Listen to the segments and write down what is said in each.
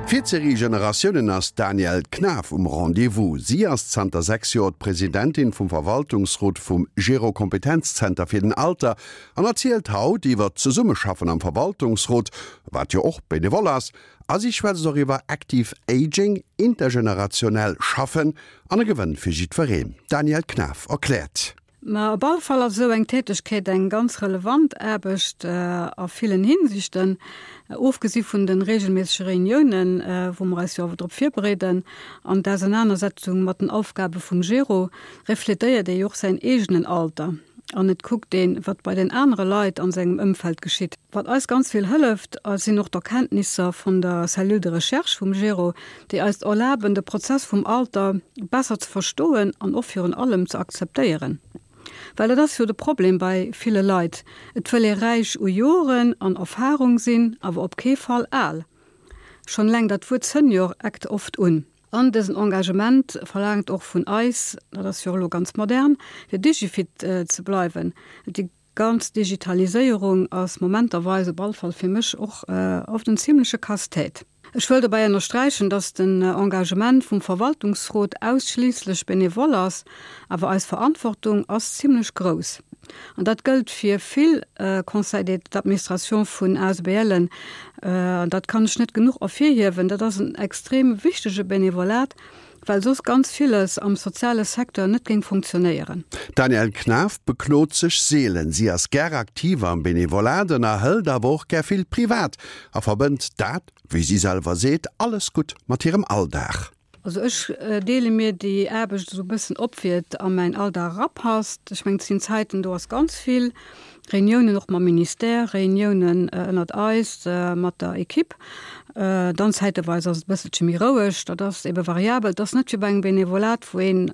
Fir d'Serie Generatiounen ass d'Danièle Knaff um Rendez-vous. Si ass zanter 6 Joer d'Presidentin vum Verwaltungsrot vum Gero Kompetenzzenter fir den Alter an erzielt haut iwwer d'Zesummeschaffen am Verwaltungsrot, wat jo och benevol ass, a si schwätzt och iwwer Active Aging, intergenerationell Schaffen an e Gewënn fir jiddwereen. D'Danièle Knaff erkläert. Ma op alle Fall ass esou eng Tätegkeet eng ganz relevant Aarbecht a villen Hinsichten, ofgesi vun de regelméissege Reuniounen, wou mer eis jo awer drop virbereeden, an d'Ausenanersetzung mat den Aufgabe vum Gero, refletéiert ee jo och säin eegenen Alter an et kuckt een, wat bei den anere Leit an sengem Ëmfeld geschitt. Wat eis ganz vill hëlleft, sinn och d'Erkenntnisser vun der Cellule de recherche vum Gero, déi eis erlaben, de Prozess vum Alter besser ze verstoen an och virun allem ze akzeptéieren. Well dat ass jo de Problem bei ville Leit, et wëll ee räich u Joren an Erfarung sinn, awer op kee Fall al. Schonn eleng dat Wuert Senior eckt oft un. An dësen Engagement verlaangt och vun eis, dat ass jo och elo ganz modern, fir digifit ze bleiwen. Déi Ganz Digitaliséierung ass momenterweis, op all Fall fir mech, och oft en zimleche Casse-tête. Ech wëll dobäi ënnersträichen, dass den Engagement vum Verwaltungsrot ausschliisslech benevol ass, awer eis Verantwortung ass zimlech grouss. An dat gëllt fir vill Conseils d'administration vun ASBLen, an dat kann ech net genuch ervirhiewen. Dat ass en extrem wichtege Benevolat, well soss ganz villes am soziale Secteur net géing funktionéieren. D'Danièle Knaff beklot sech seelen. Si ass gär aktiv am Benevolat, ënnerhëlt awer och gär vill privat a verbënnt dat, wéi si selwer seet, alles gutt mat hirem Alldag. Also ech deele mir déi Aarbecht esou e bëssen op, wéi et a mäin Alldag erapasst. Ech mengen, et sinn Zäiten, do ass ganz vill. Reuniounen och mam Ministère, Reuniounen ënnert eis mat der Equipe. Dann zäiteweis ass et e bësselche méi roueg. Dat ass ebe variabel. Et ass net wéi bei engem Benevolat, wou een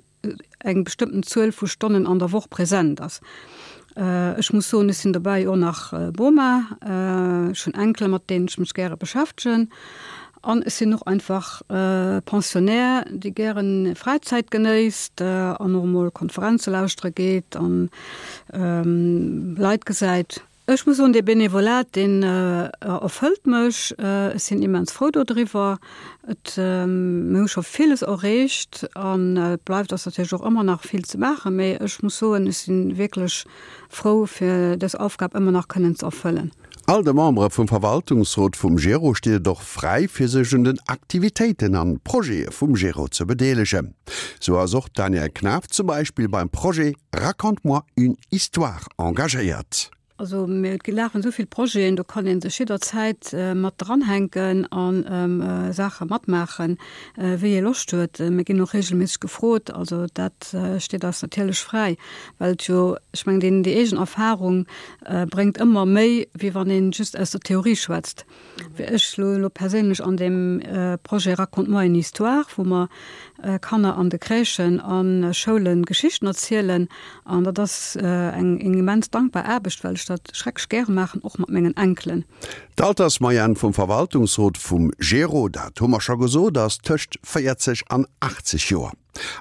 eng bestëmmten Zuel vu Stonnen an der Woch present ass. Ech muss soen, ech sinn dobäi och nach Boma. Ech hunn Enkele mat deenen ech mech gäre beschäftegen. An ech sinn och einfach Pensionnaire, dee gären Fräizäit genéisst an och emol Konferenze lauschtere geet an Leit gesäit. Ech muss soen, dee Benevolat, deen erfëllt mech. Ech sinn immens frou dodriwwer. Et, mir hu scho villes erreecht an et bleift eis natierlech och ëmmer nach vill ze maachen, mee ech muss soen, ech si wierklech frou, fir dës Aufgab ëmmer nach kënnen ze erfëllen. All de Membere vum Verwaltungsrot vum Gero steet et och fräi, fir sech un den Aktivitéiten an Projete vum Gero ze bedeelegen. Sou ass och d'Danièle Knaff zum Beispill beim Projet Raconte-moi une histoire engagéiert. Also mir lafen esou vill Projeten, do kann ee sech jidderzäit mat dranhänken a Saache matmaachen, wéi ee Loscht huet. Mir ginn och reegelméisseg gefrot, also dat steet eis natierlech fräi, well et jo, ech mengen, deen déi eegen Erfarung bréngt ëmmer méi, wéi wann een just aus der Theorie schwätzt. Wéi ech elo perséinlech an deem Projet Raconte-moi une histoire, wou mer Kanner an de Crèchen a Schoule Geschichten erzielen. An dat ass eng immens dankbar Aarbecht, well ech dat schrecklech gäre maachen, och mat mengen Enkelen. D'Altersmoyenne vum Verwaltungsrot vum Gero, dat hu mer scho gesot, ass tëscht 40 an 80 Joer.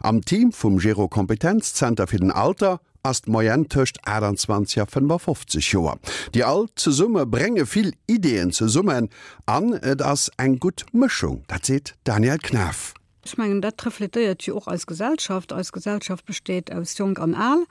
Am Team vum Gero Kompetenzzenter fir den Alter ass d'Moyenne tëscht 28 a 55 Joer. Déi all zesumme brénge vill Ideeën zesummen an et ass eng gutt Mëschung, dat seet d'Danièle Knaff. Ech mengen, dat refletéiert jo och eis Gesellschaft. Eis Gesellschaft besteet aus Jonk an Al.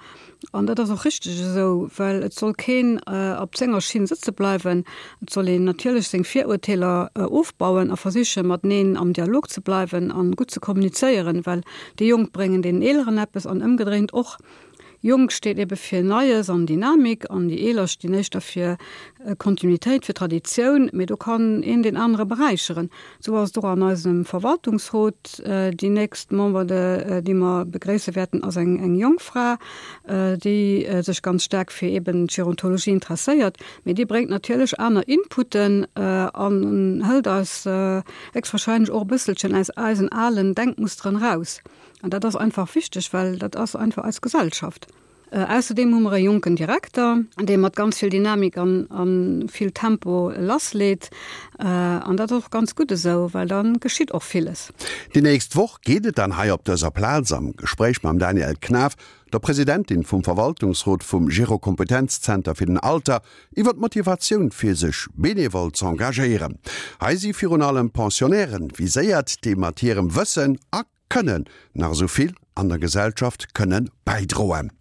An dat ass och richteg esou, well et soll keen op senger Schinn sëtze bleiwen. Et soll een natierlech seng Virurteeler ofbauen a versiche mateneen am Dialog ze bleiwen an gutt ze kommunizéieren, well déi Jonk bréngen deenen Eeleren eppes an ëmgedréint och. Jonk steet ebe fir Neies an Dynamik an déi Eeler stinn éischter fir Kontinuitéit, fir Traditioun, mee do kann een deen anere beräicheren. Esou ass et och an eisem Verwaltungsrot. Déi nächst Member, déi mer begréisse wäerten, ass eng jonk Fra, déi sech ganz staark fir eben d'Gerontologie interesséiert, mee déi bréngt natierlech aner Inputen an hëlt eis héchstwahrscheinlech och e bësselchen aus eisen alen Denkmusteren eraus. An dat ass einfach wichteg, well dat ass einfach eis Gesellschaft. Ausserdeem hu mer e jonken Direkter, dee mat ganz vill Dynamik an a vill Tempo lassleet. An dat ass och ganz gutt esou, well da geschitt och villes. Déi nächst Woch geet et dann hei op dëser Plaz am Gespréich mam Danièle Knaff, der Presidentin vum Verwaltungsrot vum Gero-Kompetenzzenter fir den Alter, iwwer d'Motivatioun fir sech benevol z'engagéieren. Hei si virun allem Pensionnairen viséiert, déi mat hirem Wëssen a Kënnen nach esou vill an der Gesellschaft kënne bäidroen.